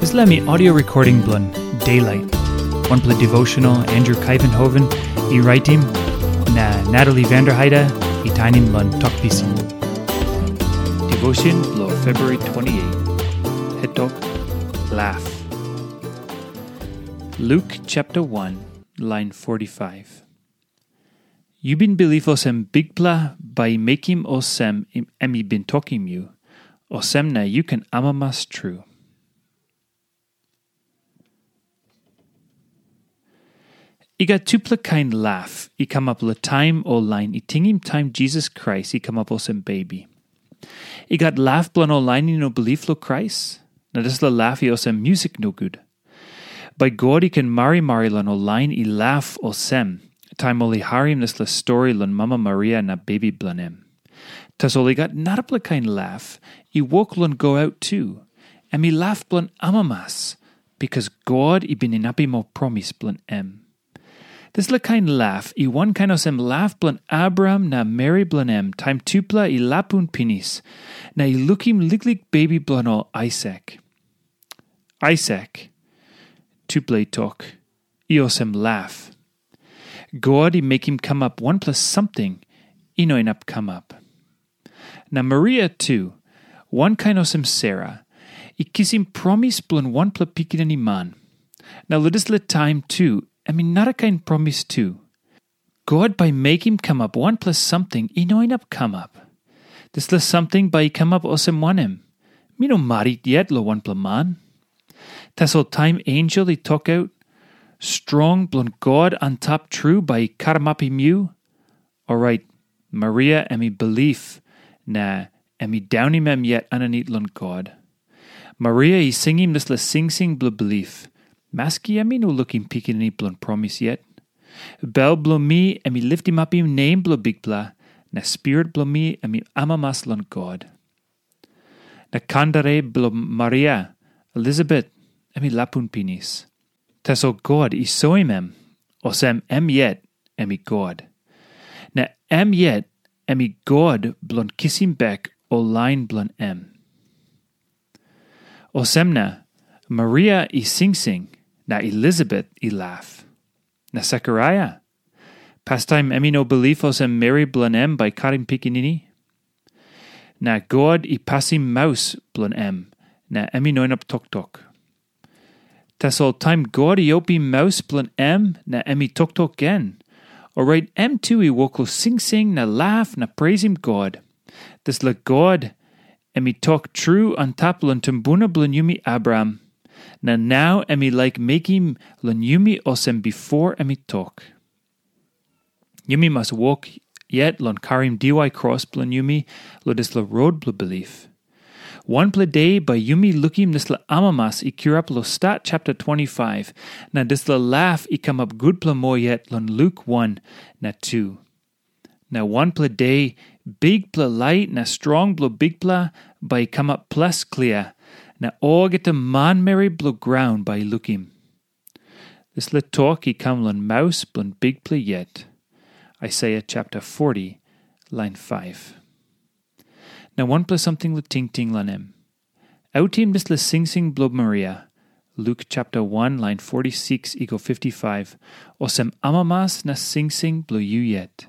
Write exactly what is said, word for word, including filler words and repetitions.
Dispela mi audio recording bilong Daylight, wanpela devotional Andrew Kaivenhoven i raitim, na Natalie Vanderheide i tainim long Tok Pisin. Devotion bilong February twenty-eight, hetok, Laugh. Luke chapter one, line forty-five. Yu bin bilip olsem Bikpela bai i mekim olsem em i bin tokim yu, olsem na yu ken amamas tru. I gat tupela kain laugh i kamap long taim ol lain i tingim taim Jisas Krais i kamap olsem bebi. I gat laugh bilong ol lain i no bilip long Krais, na dispela laugh i olsem musik nogut. Bai God i ken marimari long ol lain i laugh olsem, taim ol i harim dispela stori long mama Maria na bebi bilong em. Tasol i gat narapela kain laugh i wok long go aut tu, em i laugh bilong amamas, bikas God i bin inapim ol promis bilong em. Dispela kain laugh i wankain olsem laugh bilong Abraham na meri bilong em taim tupela i lapun pinis, na i lukim liklik bebi bilong ol Aisak. Aisak, tupela i tok, i olsem laugh. God i mekim kamap wanpela samting i no inap kamap. Na Maria tu, wankain olsem Sera, i kisim promis bilong wanpela pikinini man. Na long dispela taim tu, em i narakain promis tu. God bai mekim kamap wanpela samting i no inap kamap. Dispela samting bai i kamap olsem wanem? Mi no marit yet long wanpela man. Tasol taim ensel i tokaut, strong bilong God antap tru bai i karamapim yu, orait Maria em i bilip, na em i daunim em yet aninit long God. Maria i singim dispela singsing bilong bilip, maski em i no lukim pikinini bilong promis yet. Bel bilong mi em i litimapim nem bilong Bikpela, na spirit bilong mi em i amamas long God. Na kandere bilong Maria, Elisabet, em i lapun pinis. Tasol God i soim em, olsem em yet em i God. Na em yet em i God bilong kisim bek ol lain bilong em. Olsem na Maria i singsing, na Elisabet i laugh. Na Sekaraia, pastaim em i no bilip olsem meri bilong em bai karim pikinini. Na God i pasim maus bilong em, na em i no inap toktok. Tasol taim God i opim maus bilong em na em i toktok gen, orait em tu i wok long singsing na laugh na preisim God. Dispela God em i tok tru antap long tumbuna bilong yumi Abraham, na nau em i laik mekim long yumi olsem bipo em i tok. Yumi mas wok yet long karim diwai kros bilong yumi long dispela rot bilong bilip. Wanpela de bai yumi lukim dispela amamas i kirap long Stat chapter twenty-five, na dispela laugh i kamap gutpela moa yet long Luk one na two. Na wanpela de, bikpela lait na strong bilong Bikpela bai i kamap ples klia, na olgeta manmeri bilong graun bai i lukim. Dispela tok i kam long maus bilong Bikpela yet. Aisaia chapter forty, line five. Na wanpela samting long tingting long em. Autim dispela singsing bilong Maria, Luk chapter one, line forty-six i go fifty-five, olsem amamas na singsing bilong yu yet.